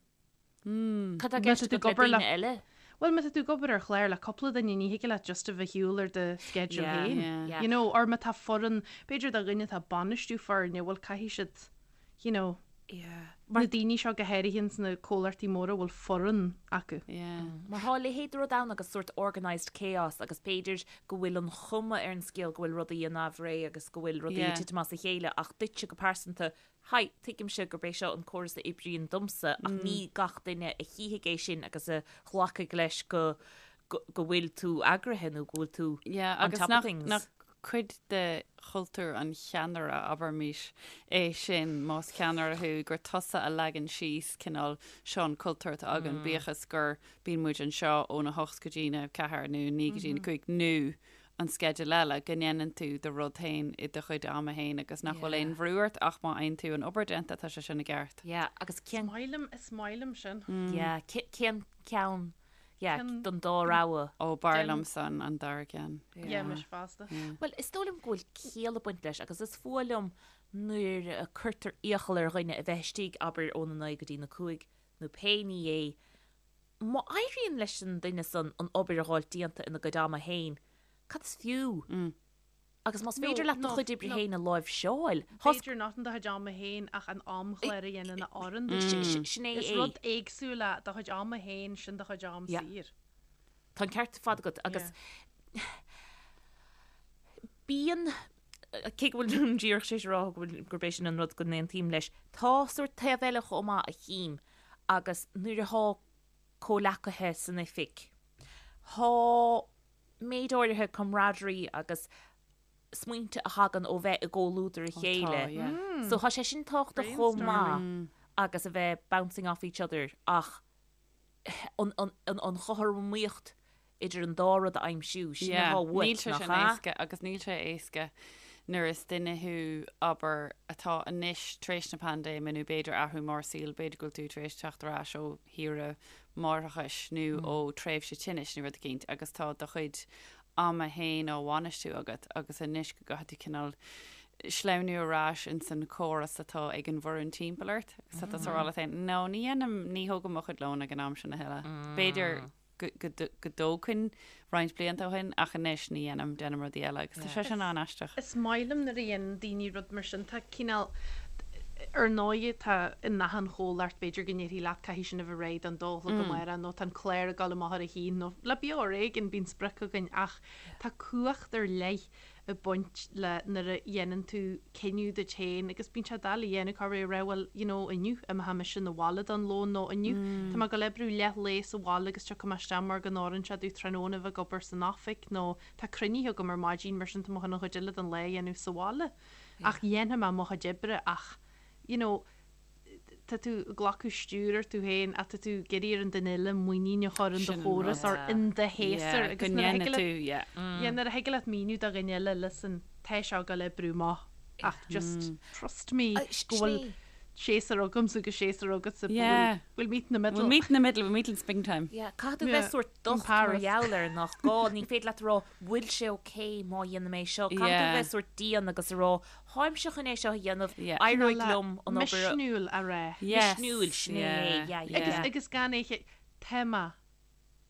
cad tá
Má
gceist
tá tú
agat le
ag obair le
daoine eile?
Bhuel, má tá tú ag obair ar chlár le cúpla duine, ní thig leat just a bheith ag siúl ar do schedule
Yeah,
féin.
yeah.
Yeah.
You know, or má tá foireann, b'fhéidir do dhuine atá ag bainistiú foirne, bhuel caithfidh siad, you know,
Yeah.
na daoine seo go háirithe ins na comhlachtaí móra a bhfuil foireann acu.
Yeah.
Mar tá a leithéid de rud ann agus sórt organised chaos agus b'fhéidir go bhfuil an chuma ar an scéal go bhfuil rudaí in aimhréidh agus go bhfuil rudaí
Yeah.
ag titim as a chéile ach duitse go pearsanta, hi, tuigimse gurb é seo an córas a oibríonn domsa ach ní gach duine a chífidh é sin agus a ghlacfaidh leis go go go bhfuil tú eagraithe nó go bhfuil tú
Yeah,
on
agus
top of
nach,
things.
nach cuid de chultúr an cheannaire, abraimis, é sin, más ceannaire thú, gur tusa a leagann síos cineál seo an cultúr atá againn, bíodh is gur bíonn muid anseo óna hocht go dtína ceathair nó naoi go dtína cúig nó an sceideal eile, go ndéanann tú do rud féin i do chuid ama féin agus nach bhfuil aon bhrú ort ach má fhaigheann tú an obair déanta, tá sé sin i gceart.
Yeah, agus cén
Is maith liom, is maith liom sin.
Yeah, cén ceann? Yeah, don dá rogha.
Ó, b'fhearr liomsa an dara ceann.
Yeah, mise fosta.
Bhuel, is dóigh liom go bhfuil ciall ag baint leis agus is fuath liom nuair a cuirtear iachall ar dhuine a bheith istigh, abair, óna naoi go dtí na cúig nó pé ní é. Má éiríonn leis an duine san an obair a dh'fháilt déanta ina gcuid ama féin, cad is fiú? Agus más féidir leat do chuid oibre féin a láimhseáil,
B'fhéidir not in do chuid ama féin ach an amchlár a dhéanann a oireann duit.
Sin é
Is rud éagsúil é do chuid ama féin, sin do chuid am saor.
Tá an ceart ar fad agat agus bíonn, cé go bhfuil díreach tar éis a rá go bhfuil, gurb é sin an rud go n-aontaím leis, tá sórt taobh eile chomh maith a chím agus nuair athá comhleacaithe san oifig, thá méid áirithe camaraderie agus smaointe a thagann ó bheith i gcomhluadar a chéile. So tá sé sin tábhachtach chomh maith agus a bheith bouncing off each other ach an chothromaíocht idir an dá rud a aimsiú, sin atá uait,
Níl sé
nach
sin
ea?
éasca agus níl sé éasca nuair is duine thú, abair, atá anois tar éis na paindéime nó b'fhéidir athrú mór saoil, b'fhéidir go bhfuil tú tar éis teacht ar ais ó shaoire máithreachais nó ó tréimhse tinnis nó rud eicínt agus tá do chuid ama fhéin á bhainistiú agat agus anois go gcaithfidh tú cineál sleamhnú ar ais ins an chóras atá ag an bhfoireann timpeall ort agus tá tusa ag rá leat féin no ní dhéanaim, ní thógaim mo chuid lóin ag an am sin a thuilleadh. B'fhéidir go dtógfainn roinnt blianta ó shin ach anois ní dhéanaim, déanaim rudaí eile agus tá sé sin an-aisteach.
Is maith liom nuair a dhéanann daoine rud mar sin, tá cineál, ar ndóigh tá in achan chomhlacht b'fhéidir go ndéarfaí leat caithfidh sin a bheith réidh don dó a chlog amárach nó tá an clár ag dul amach ar a haon nó le Beo Ar Éigean bíonn sprioc againn ach tá cumhacht ar leith ag baint le nuair a dhéanann tú cinneadh duit féin agus bíonn sé doiligh a dhéanamh cá raibh rá bhuel you know inniu imeoidh mise 'na bhaile don lón nó inniu tá mé ag dul oibriú leath lae sa bhaile agus tiocfaidh mé isteach mar go n-oireann sé domh tráthnóna a bheith ag obair san oifig nó tá cruinnithe agam ar maidin mar sin tá mé chun an chuid eile den lá a dhéanamh sa bhaile ach dhéanfaidh mé mo chuid oibre ach you know tá tú ag glacadh stiúir ort tú féin ach tá tú ag iarraidh ar an duine eile muinín a chur in do chóras or in do shéasúr
agus nuair a thig leat
yeah nuair a thig leat míniú do dhuine eile listen tá seo ag dul oibriú amach ach just trust me go bhfuil séasúr agamsa agus séasúr agatsa
Yeah.
we'll meet in the middle.
We'll meet in the middle, we'll meet in springtime.
Yeah, caithfidh tú bheith sórt docht mar gheall air nach gá, ní féidir leat a rá bhfuil sé ok má dhéanaim é seo, caithfidh tú bheith sórt dian agus a rá Táimse chun é seo a dhéanamh, éireoidh liom an
obair a. Misniúil a rá.
Misniúil, sin é, yeah, yeah.
Agus gan é, tá mé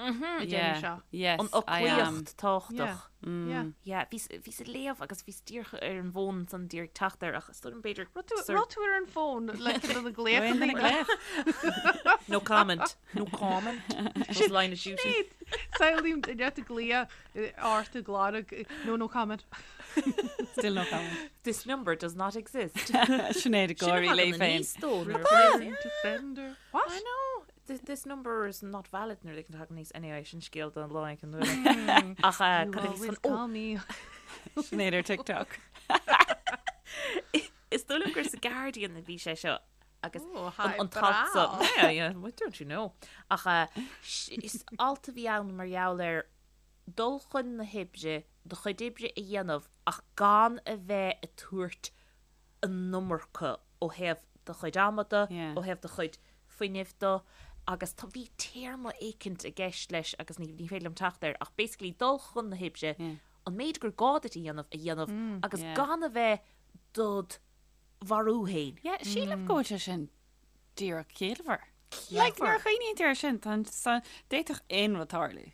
ag déanamh seo.
Yes,
An fhoclaíocht tábhachtach. Yeah. Yeah, bhíos, bhíos ag léamh agus bhíos díreach ar an bhfón ansan díreach ag teacht air ach is dóigh liom b'fhéidir.
Raibh tú ar an bhfón le do na glaochanna?
No comment. No comment. Was line of duty.
Samhlaím duine ag glaoch ort ag lorg no no comment.
Still no comment.
This number does not exist.
Sinéad ag gáirí léi féin.
Return to sender.
What? I know. This, this number is not valid nuair a thagann aníos. Anyway, sin scéal don lá éigin eile. Ach
You
cad a bhí
always
san- ó,
call me.
Sinéad ar TikTok.
Is dóigh liom gur sa Guardian a bhí sé seo agus
Oh, hi,
an t-alt so.
brá.
Yeah, yeah, well, don't you know. Ach uh, is alt a bhí ann mar gheall ar dul chun na hoibre, do chuid oibre a dhéanamh ach gan a bheith ag tabhairt an iomarca ó thaobh do chuid ama de,
Yeah.
ó thaobh do chuid fuinnimh de agus tá, bhí téarma éicint i gceist leis agus ní, ní féidir liom teacht air ach basically dul chun na hoibre,
Yeah.
an méid gur gá duit a dhéanamh a dhéanamh agus
Yeah.
gan a bheith dod mharú féin.
Yeah, sílim go bhfuil sé sin díreach ciallmhar. Like, nuair a chuimhníonn tú air sin, tá an- sa- d'fhéadfadh aon rud tarlú.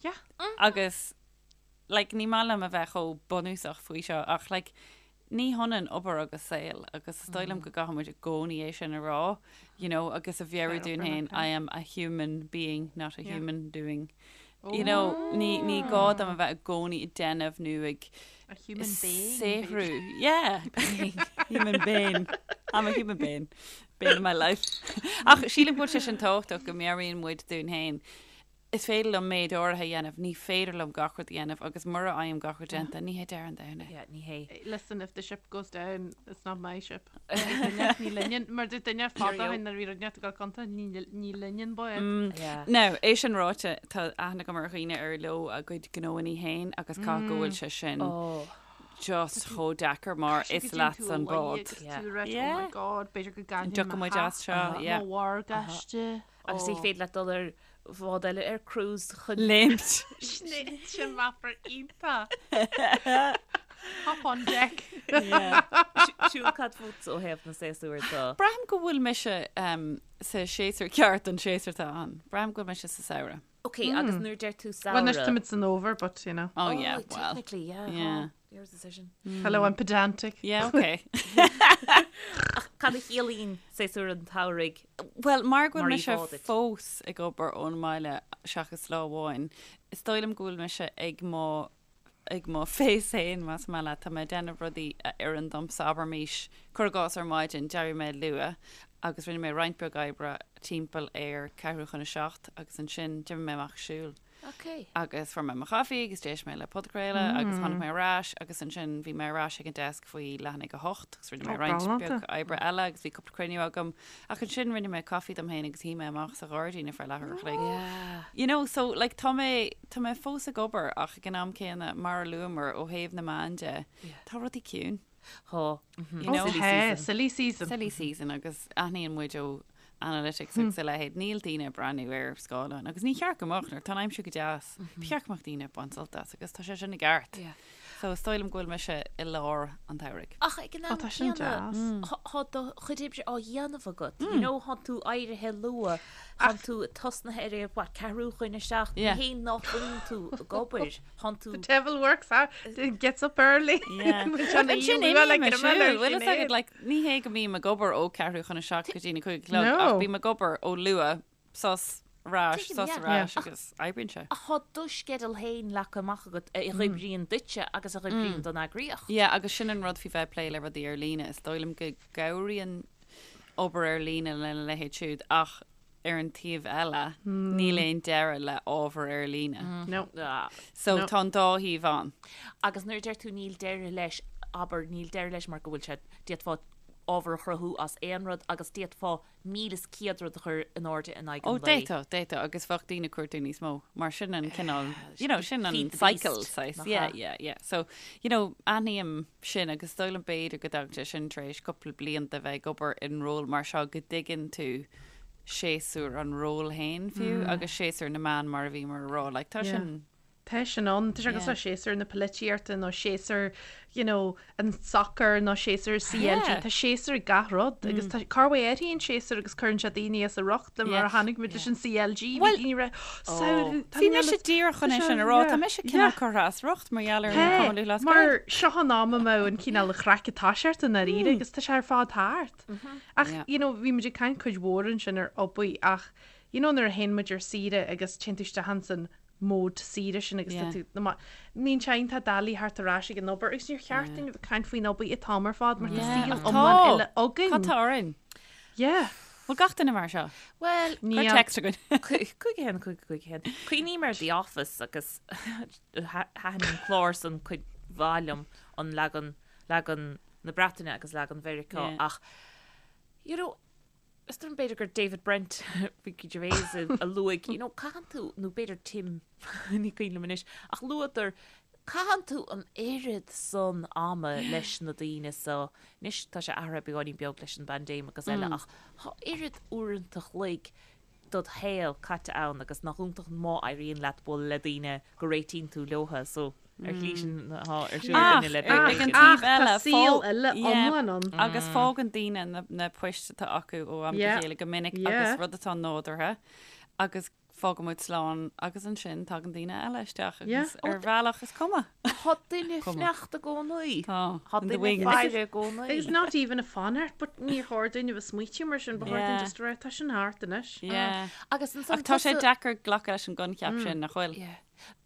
Yeah.
Agus, like, ní maith liom a bheith chomh bunúsach faoi seo, ach, like, ní hionann obair agus saol, agus is dóigh liom go gcaithfidh muid i gcónaí é sin a rá, you know, agus a mheabhrú dúinn féin, I am a human being, not a human doing. You know, ní, ní gá dom a bheith i gcónaí ag déanamh nó ag
A human being.
saothrú. Yeah. Human being. I'm a human being. Bane of my life. Ach sílim go bhfuil sé sin tábhachtach go meabhraíonn muid dúinn féin. Is féidir liom méid áirithe a dhéanamh, ní féidir liom gach rud a dhéanamh agus mura bhfaighim gach rud déanta, ní hé deireadh an domhain é.
Yeah, ní hé.
Listen, if the ship goes down, it's not my ship. Ní linne, mar dúirt duine fada ó shin nuair a bhí rud inteacht ag dul contúirt, ní linne an bád.
Yeah.
Now, é sin ráite, tá aithne agam ar dhaoine ar leo a gcuid gnóanna féin agus caithfidh go bhfuil sé sin
Oh.
just chomh deacair mar is leatsa an bád.
Yeah.
Yeah.
Oh my god, b'fhéidir go gcaillfinn
Dtiocfaidh muid as seo, yeah.
Mo mhorgáiste.
Agus ní féidir leat dul ar. bhád eile ar cruise
chun. Léimt.
Sin meafar iontach. Hop on deck.
Siún cad fút ó thaobh na séasúr de?
Braithim go bhfuil mise sa séasúr ceart don séasúr atá ann. Braithim go bhfuil mise sa samhradh.
Ok, agus nuair a deir tú samhradh.
Well, anois táimid san fhómhar, but you know.
Oh yeah, well.
Technically, yeah.
Yeah.
Your decision.
Hello, I'm pedantic.
Yeah, ok.
Ach cad a chiallaíonn séasúr an tsamhraidh?
Well, mar go bhfuil
Mar
mise
íomhá duit.
fós ag obair ón mbaile seachas lá amháin, is dóigh liom go bhfuil mise ag mo ag mo phace féin, más maith leat. Tá mé ag déanamh rudaí a oireann domsa, abraimis, cuir i gcás ar maidin, d'éirigh mé luath agus rinne mé roinnt beag oibre timpeall ar ceathrú chun a seacht agus ansin d'imigh mé amach ag siúl.
Ok.
Agus fuair mé mo chaife agus d'éist mé le podchraoladh agus tháinig mé ar ais agus ansin bhí mé ar ais ag an desk faoi leath i ndiaidh a hocht agus rinne mé roinnt beag oibre eile agus bhí cúpla cruinniú agam ach ansin rinne mé caife dom féin agus shuigh mé amach sa ghairdín ar feadh leathuair a chloig. You know, so like tá mé, tá mé fós ag obair ach ag an am céanna mar a luamar ó thaobh na meán de, tá rudaí ciúin.
Tá.
You know?
Silly season. Silly season.
Silly season agus aithníonn muid ó analytics agus a leithéid, níl daoine ag breathnú ar scáileán agus ní cheart go mbeadh nuair atá an aimsir go deas. Ba cheart go mbeadh daoine ag baint sult as agus tá sé sin i gceart. So is dóigh liom go bhfuil mise i lár an tsamhraidh.
Ach ag an am
tá sin
céanna,
deas.
tá do chuid oibre á dhéanamh agat. You know, tá tú éirithe luath, tá tú tosnaithe ar a what, ceathrú chun a seacht, ní hé nach bhfuil tú ag obair, tá tú...
The devil works hard, gets up early.
Ansin imím ag siúl, bhfuil fhios agat, like, ní hé go mbím ag obair ó ceathrú chun a seacht go dtí na cúig a chlog, ach bím ag obair ó luath, sos, ar ais, sos, ar ais agus oibríonn sé.
Ach tá do sceideal féin leagtha amach agat a oibríonn duitse agus a oibríonn don eagraíocht.
Yeah, agus sin an rud faoi bheith ag plé le rudaí ar líne, is dóigh liom go gcabhraíonn obair ar líne lena leithéid siúd ach ar an taobh eile, níl aon deireadh le ábhar ar líne.
No.
So tá an dá thaobh ann.
Agus nuair a deir tú níl deireadh leis, abair, níl deireadh leis mar go bhfuil sé, d'fhéadfá ábhar a chruthú as aon rud agus d'fhéadfá 1,100 rud a chur in airde in aghaidh
Ó,
an lae.
d'fhéadfá, d'fhéadfá, agus bheadh daoine ag cuartú níos mó, mar sin an cineál, you know, sin an
Feed the
cycle,
beast,
saghas,
nach
yeah,
ea?
yeah, yeah. So, you know, aithním sin agus is dóigh liom b'fhéidir go dtagann sé sin tar éis cúpla bliain de bheith ag obair in ról mar seo go dtuigeann tú séasúr an ról féin fiú agus séasúr na meán mar a bhíomar a rá, like, tá
Yeah.
sin,
Tá sin ann, tá sé cosúil le séasúr na polaitíochta nó séasúr, you know, an soccer nó séasúr CLG, tá séasúr ag gach rud agus tá corruair athraíonn séasúr agus cuireann sé daoine as a riocht mar a chonaic muid leis an CLG, bhí daoine rá, samhradh, tá
Bhí mise díreach chun é sin a rá, tá mise cineál curtha as riocht mar gheall ar an Cumann Lúthchleas Gael.
Mar seo an am a mbeadh an cineál craic ag toiseacht i ndáiríre agus tá sé ar fad thart. Ach, you know, bhí muid ag caint cuid mhór ansin ar obair ach, you know, nuair a théann muid ar saoire agus téann tú isteach ansan mód saoire sin agus tá tú na ma- Níonn sé iontach doiligh theacht ar ais ag an obair agus níor cheart dúinn a bheith ag caint faoin obair an t-am ar fad mar tá saol iomlán eile againn.
Cad tá orainn?
Yeah.
Bhfuil gach duine mar seo?
Bhuel,
Cuir
Níl.
text againn.
5 1 5 5 1. Cuimhním ar The Office agus thaitin an clár san cuid mhaith liom an leagan leagan na Breataine agus leagan Mheiriceá
Yeah.
ach you know, Is dóigh liom b'fhéidir gur David Brent, Ricky Gervais a luaigh, you know, caitheann tú, nó b'fhéidir Tim, ní cuimhin liom anois, ach luadar, caitheann tú an oiread san ama leis na daoine so, anois tá sé athraithe beagáinín beag leis an bpaindéim agus eile ach tá oiread uaireanta chloig dod shaol caite ann agus nach iontach má éiríonn leat bualadh le daoine go réitíonn tú leotha so ar shlí sin atá ar siúl againne le
Ach ag an
Big
taobh
Ach tá
eile,
saol
fá-
eile
yeah,
iomlán ann.
Agus fágann daoine na, na poist atá acu ó am go
Yeah.
chéile go minic
Yeah.
agus rud atá nádúrtha agus fágann muid slán agus ansin tagann daoine eile isteach
Yeah.
agus ar bhealach is cuma.
Tá duine
Cuma.
fanacht i gcónaí.
Tá.
Tá
In the
duine
wings.
faire i gcónaí.
Agus not even a fanacht, but níor chóir dúinn a bheith smaoitiú mar sin, ba chóir dúinn
Yeah.
just a rá, tá sin thart anois.
Yeah.
Agus ansan
Ach tá sé
tusa-
deacair glacadh leis an gcoincheap sin nach bhfuil?
Yeah.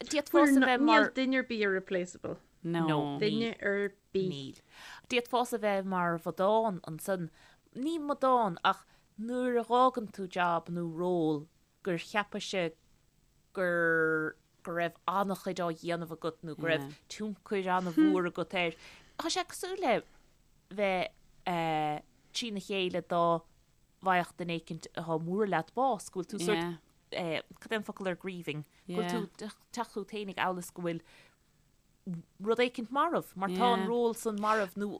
D'fhéadfása
We're
bheith
not-
mar
Níl duine ar bith irreplaceable.
No.
No.
Duine ar bith.
Níl. D'fhéadfása bheith mar mhadán ansan. Ní madán ach nuair a dh'fhágann tú jab nó ról gur cheapais gur go raibh an-chuid á dhéanamh agat nó go raibh tionchar an-mhór agat air. Tá sé cosúil le bheith trína chéile dá bhfaigheadh duine éicint atá mór leat bás, go bhfuil tú sort, cad é an focal ar grieving? Go bhfuil tú teacht chugat féinig amhail is go bhfuil. rud éicint marbh, mar tá an ról san marbh nó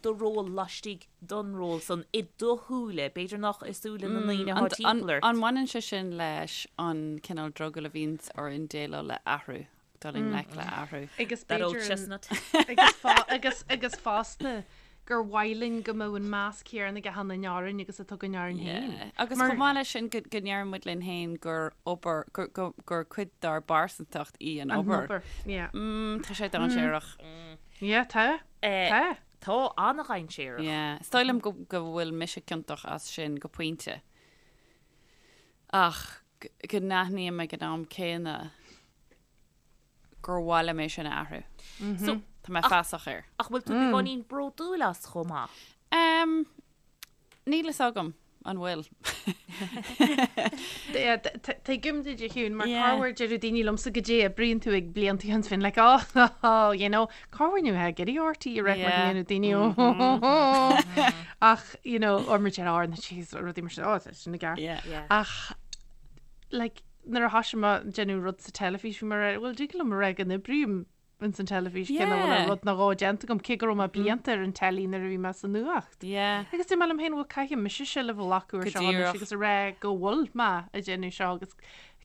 do ról laistigh don ról san i do shúile, b'fhéidir nach i súile na ndaoine atá timpeall ort.
An mbaineann sé sin leis an cineál drogall a bhíonns orainn déileáil le athrú, dul i ngleic le athrú?
Agus
That old
b'fhéidir
chestnut.
agus agus fosta gur mhaith linn go mbeadh an meas céanna ag achan duine orainn agus atá againn orainn féin.
Yeah. Agus chomh maith leis sin go ndeireann muid linn féin gur obair, gur, gur, gur cuid dár bpearsantacht í an
An
obair.
obair, yeah.
Mm, tá sé dainséarach.
Yeah, tá.
Eh,
Tá.
Tá an-dhainséarach.
Yeah. Is dóigh liom go, go bhfuil mise ciontach as sin go pointe. Ach go n-aithním ag an am céanna gur mhaith liom é sin a athrú.
So,
Tá mé feasach air.
ach bhfuil tú beagáinín bródúil as chomh maith?
Um, níl fhios agam an bhfuil.
Tuigim duit a Shiún, mar
Yeah.
corruair deireadh daoine liomsa goidé oibríonn tú ag blianta ó shin bhínn like oh, oh, you know, corruair ní bheith ag iarraidh RTÉ a rá mar
Yeah.
dhéanamh daoine oh, oh, oh. Ach, you know, or mar deir ár na jeez, rudaí mar sin, oh, tá sin i gceart.
Yeah.
Yeah.
Ach, like, nuair a thoisigh mé ag déanamh rud sa teilifís, bhí mé ag rá, bhuel, dtig liom a rá go n-oibrím ins an teilifís, cé nach bhfuil
Yeah.
rud nó dhó déanta agam, cé go raibh mé blianta ar an teilí nuair a bhí mé sa nuacht.
Yeah.
Agus dúirt mé liom féin, bhuel, caithfidh mise seilbh a ghlacadh ar
Go
seo anois
díreach.
agus a rá go bhfuil mé ag déanamh seo agus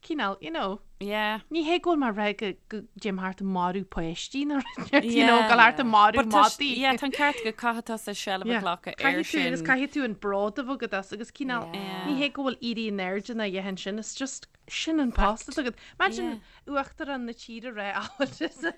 cineál, you know,
Yeah.
ní hé go bhfuil mé ag rá go go dtéim thart ag marú páistí nó rud, you know,
Yeah.
gabháil thart ag marú
But tá s-
madaí.
yeah, tá an ceart go caithfidh tusa seilbh a
Yeah.
ghlacadh ar
Caithfidh tú agus
sin.
caithfidh tú an bród a bheith agat as agus cineál,
Yeah.
ní hé go bhfuil éirí in airde ná a dhath ansin, it's just sin an post atá agat. Imagine uachtarán na tíre rá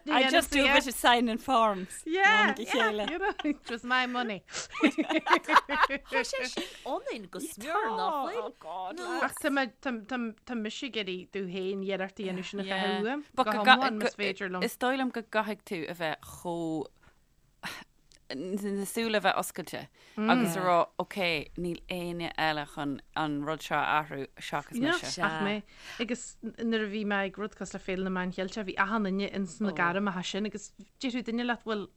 I just do a bit of signing forms.
Yeah,
Mom go
yeah,
chéile.
you know, it was my money.
Tá sé sin ionainn go smior nach bhfuil?
Oh God.
Nó-
Ach tá mé- tá- tá- tá mise ag iarraidh domh féin iarracht a dhéanamh sin a
Yeah.
chaitheamh uaim,
But
go
go ga-
hiomlán
go-
más féidir liom.
Is dóigh liom go gcaithfidh tú a bheith chomh na súile a bheith oscailte agus a rá, ok, níl éinne eile chun an rud seo a athrú seachas mise.
Ach mé. Agus nuair a bhí mé ag rud cosúil le Féile na Meán Cheilteach, bhí achan duine ins na gairmeacha sin agus déarfadh duine leat, bhuel,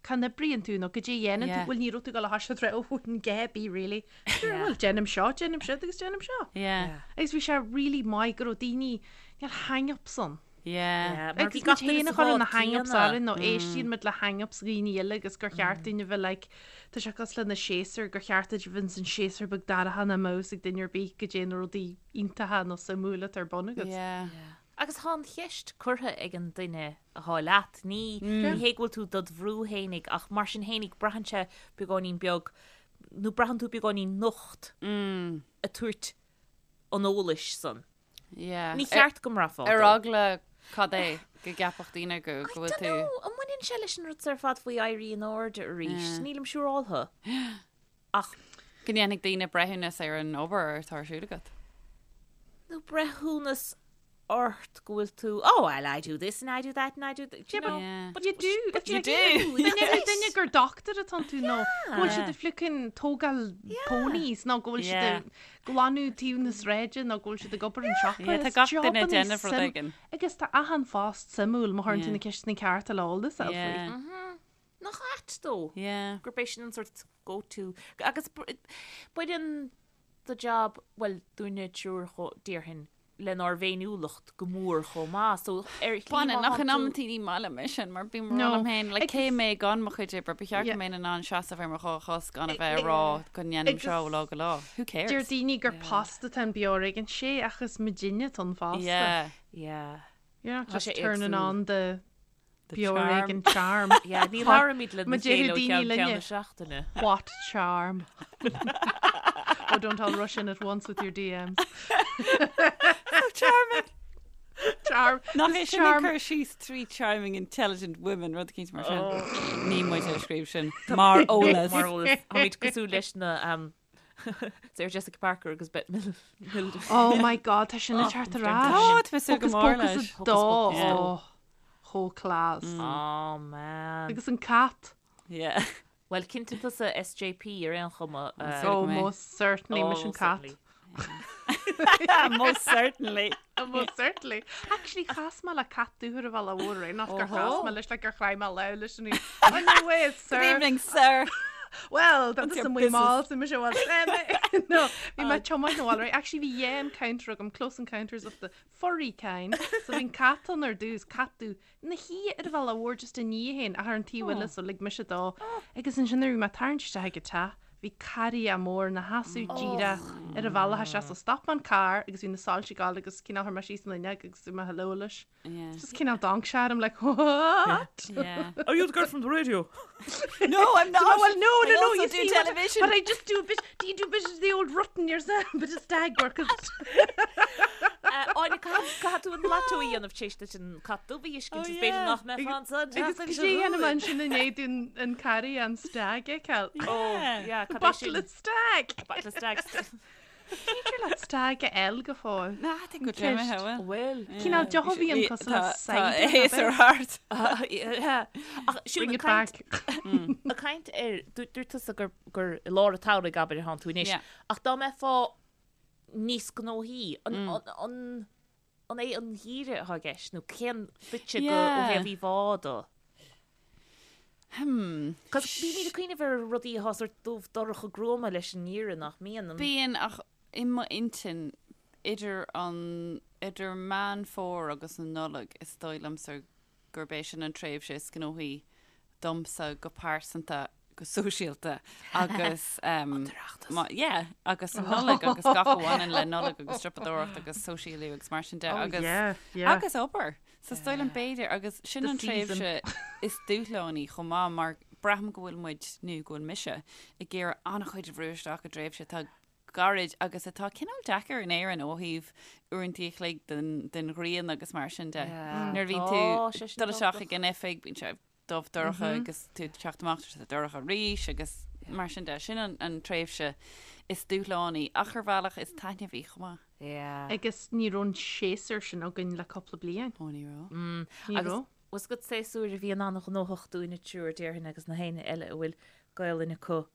cá n-oibríonn tú nó goidé a dhéanann tú, bhuel, ní raibh tú ag dul a thoiseacht ag rá, oh, an Gaby, really. Sure, bhuel, déanaim seo, déanaim siúd agus déanaim seo.
Yeah.
Agus bhí sé really maith go raibh daoine, níl hang-ups ann.
Yeah.
Mar
Agus
bhí gach
muid
duine
féin
sa
a chuireann na
bhád
hang-ups
céanna.
orainn nó éistíonn muid le hang-ups dhaoine eile agus gur cheart dúinn a bheith like, tá sé cosúil le na séasúir, gur cheart duit a bheith ins an séasúr beag dorcha nach mbeadh fhios ag duine ar bith goidé na rudaí iontacha nó suimiúla atá ar bun agat.
Yeah.
Agus tá an cheist curtha ag an duine atá leat. Ní ní hé go bhfuil tú dod bhrú fhéinig ach mar sin fhéinig braitheann sé beagáinín beag nó braitheann tú beagáinín nocht ag tabhairt an eolais san.
Yeah.
Ní cheart go mbraithfeá
Ar
dó.
eagla cad é go gceapfadh daoine go go bhfuil
I
tú.
don't know, an mbaineann sé leis an rud ar fad faoi éirí in airde arís? Nílim siúráltha. Ach
Go ndéanfaidh daoine breithiúnas ar an obair atá ar siúl agat.
nó breithiúnas ort go bhfuil tú, oh well I do this and I do that and I do that, you know.
Yeah.
But you do. But
you do.
Dá ndéarfadh duine gur doctor atá tú nó go bhfuil siad ag fliuchadh tógáil ponies nó go bhfuil siad
Yeah.
ag glanadh taobh na sráide nó go bhfuil siad ag obair an siopa.
Yeah, tá
Is
gach duine ag
jobanna
déanamh rud
suim-
éigin.
Agus tá achan phost suimiúil má chuireann tú
Yeah.
na ceisteanna cearta le eolas a fháil faoi.
Yeah.
Nach ait dó?
Yeah.
Gurb é sin an sort go to. Agus baineann do job, bhuel, dúinne triúr déarfainn, lenár bhféiniúlacht go mór chomh maith. So ar shlí
Baineann,
má
ach
thánn
in
tú-
amantaí ní maith liom é sin mar bím
No.
rá liom féin, like,
Agus-
cé mé gan mo chuid oibre, ba cheart
Yeah.
go mbeinn in ann seasamh ar mo dhá chos gan a bheith ag rá go ndéanaim seo ó lá go lá. Who cares?
Deir daoine gur post atá in Beo ar Éigean, sea ach is muidinne atá an fosta.
Yeah.
Yeah.
You're not
Tá
just
sé
turning
éagsúil.
on the
The
Beo ar
charm.
Éigean charm.
Yeah, ní labhraímid le
Ma
na chéile
déarfadh
ó
daoine
cheann ceann
linne.
na seachtaine.
What charm? oh, don't all rush in at once with your DMs.
Charming.
Charm.
Nach
This
é sin
charm.
cur síos three charming intelligent women rud eicínt mar sin. Ní muid a scríobh sin mar eolas.
Mar eolas. Táimid cosúil leis na um, Sarah Jessica Parker agus Bette Midler.
Oh my god, tá sin ag teacht ar ais.
Tá, tá mé ag súil go
Hocus
mór
Pocus
leis.
a dó.
Pocus.
Oh, chomh class.
Oh man.
Agus an cat.
Yeah.
Well, cinnte tusa SJP ar aon chuma.
Uh,
Oh,
mé.
most certainly,
oh,
mise an cat.
certainly.
Most certainly.
Oh, most certainly. Actually, chas mé le cat dúthar a bheith mhór, nach gur chas mé leis le gur chraith mé le leis an Oh, no way, sir.
Good evening, sir.
Well, tá
What's
tusa
your
amuigh mall,
business?
so mise well, No, bhí mé tiomáint na bhaile, right? Actually, bhí dhá encounter agam, close encounters of the furry kind. So bhí an cat ann ar dtús, cat dubh, ina shuí ar an bhealach mhór just i ndiaidh féin, ach ar an taobh eile, so lig mise dó. Agus ansin nuair a bhí mé ag tarraingt isteach ag an teach, bhí carria mór ina sheasamh díreach ar an bhealach isteach, so stop mé an carr agus bhí na soilse ag gabháil agus cineál chuir mé síos an fhuinneog agus dúirt mé hello leis.
Yeah.
Just cineál d'amharc sé orm like what?
Yeah.
Are you the girl from the radio?
No, I'm not.
Well, no, no,
I
no,
also
you
do
see what-
television.
But I just do a bit, do you do a bit of the old rutting yourself, bit of stag work?
Áine, caithfidh tú an lotto a dhéanamh tar éis duit an cat dubh a fheiscint,
Oh,
is b'fhéidir
yeah.
nach mbeifeá ansan
Agus
seachtain
cad
seo
é dhéanamh
chugainn.
ansin i ndiaidh dúinn an carria an stag a fheiceáil?
Oh, yeah, cad é
Bottle
sin?
of stag!
Bottle of stag.
Féidir leat stag a fháil go fóill.
Ná, tá go dréimithe, bhfuil.
Bhfuil.
Cineál deoch a bhíonn cosúil le
Tá
cider,
héasar thart.
Ach siúd
Bring
ag
it
caint
back.
ag caint ar dúirt tusa gur gur i lár an tsamhraidh abair atánn tú anois.
Yeah.
Ach dá mbeifeá níos gnóthaí, an an an é an geimhreadh atá i gceist nó cén duitse go ó
Yeah.
thaobh íomhá de?
Hmm.
Cos bímid ag cuimhneamh ar rudaí atá sort dubh dorcha gruama leis an ngeimhreadh nach mbíonn an.
Bíonn ach i m'intinn idir an idir Meán Fómhair agus an Nollaig is dóigh liomsa gurb é sin an tréimhse is gnóthaí domsa go pearsanta, go sóisialta agus um, má, yeah, agus an Nollaig agus gach a bhaineann le Nollaig agus siopadóireacht agus sóisialú agus mar sin de
Oh,
agus
yeah, yeah.
agus obair. So is dóigh liom b'fhéidir agus sin
The
an
season.
tréimhse is dúshlánaí chomh maith mar braithim go bhfuil muid nó go bhfuil mise ag iarraidh an-chuid a bhrú isteach i dtréimhse atá gairid agus atá cineál deacair in Éirinn ó thaobh uaireanta a chloig den, den ghrian agus mar sin de. Nuair a bhíonn
Tá
tú
sé sin
dul isteach
tábhachtach.
ag an oifig, bíonn sé dubh dorcha agus tú ag teacht amach tá sé dorcha arís agus mar sin de. Sin an, an tréimhse is dúshlánaí ach ar bhealach is taitneamhaí chomh maith.
Yeah.
Agus ní raibh an séasúr sin againn le cúpla bliain.
Ó ní raibh.
Ní
Agus
raibh.
bhfuil a fhios agat séasúr a bhíonn an-ghnóthach dúinn an triúr déarfainn agus na héinne eile a bhfuil Gaelainn acu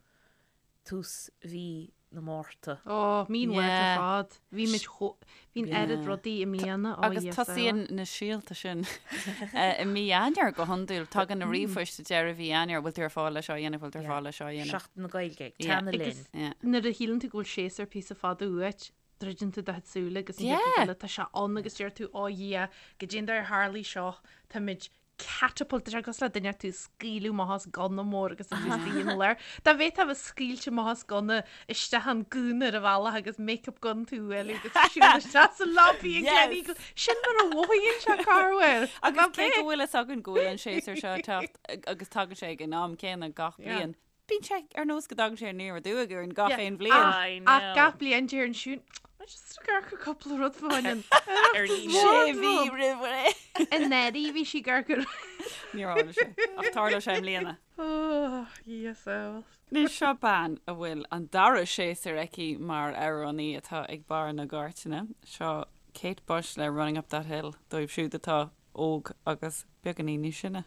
tús mhí na Márta.
Ó, mí an Mhárta
Yeah.
ar fad. Bhí muid chomh, bhí an oiread rudaí i mbliana. Ó,
Agus
Íosa.
tosaíonn na síolta sin i mí Eanáir go hiondúil. Tagann na ríomhphoist i deireadh mhí Eanáir, bhfuil tú ar fáil le seo a dhéanamh, bhfuil tú ar fáil le seo a dhéanamh.
Seachtain na Gaeilge,
Yeah.
teannadh
Agus
linn.
Yeah.
nuair a shíleann tú go bhfuil séasúr píosa fada uait, druideann tú do chuid súile agus an
Yeah.
chéad rud eile, tá sé ann agus deir tú, ó Dhia, goidé an dóigh ar tharlaigh seo, táimid catapult, tá sé cosúil le duine tú a scaoileadh amach as gunna mór agus tú istigh ina lár. Dá bhféadfá a bheith scaoilte amach as gunna isteach an gúna ar an bhealach agus make-up gun tú uilig agus siúl isteach sa lobby ag
Yes.
Gleneagles. Sin mar a mhothaíonn sé corruair.
Agus cé go bhfuil fhios againn go bhfuil an séasúr seo ag teacht agus tagann sé ag an am céanna gach
Yeah.
bliain. Bíonn sé ar nós go dtagann sé aniar aduaidh orainn gach
Yeah.
aon bhliain.
I
Ach
know.
gach bliain deireann Siún, I just ag amharc ar cúpla rud fá choinne.
Ar líne.
Sé mhí roimh ré.
Anuraidh bhí sí ag amharc ar.
Níor tharla sé. Ach tarlóidh sé i mbliana.
Oh, yes, well.
Anois seo bean a bhfuil an dara séasúr aici mar amhránaí atá ag barr na gcairteanna. Seo Kate Bush le Running Up That Hill dóibh siúd atá óg agus beagáinín níos sine.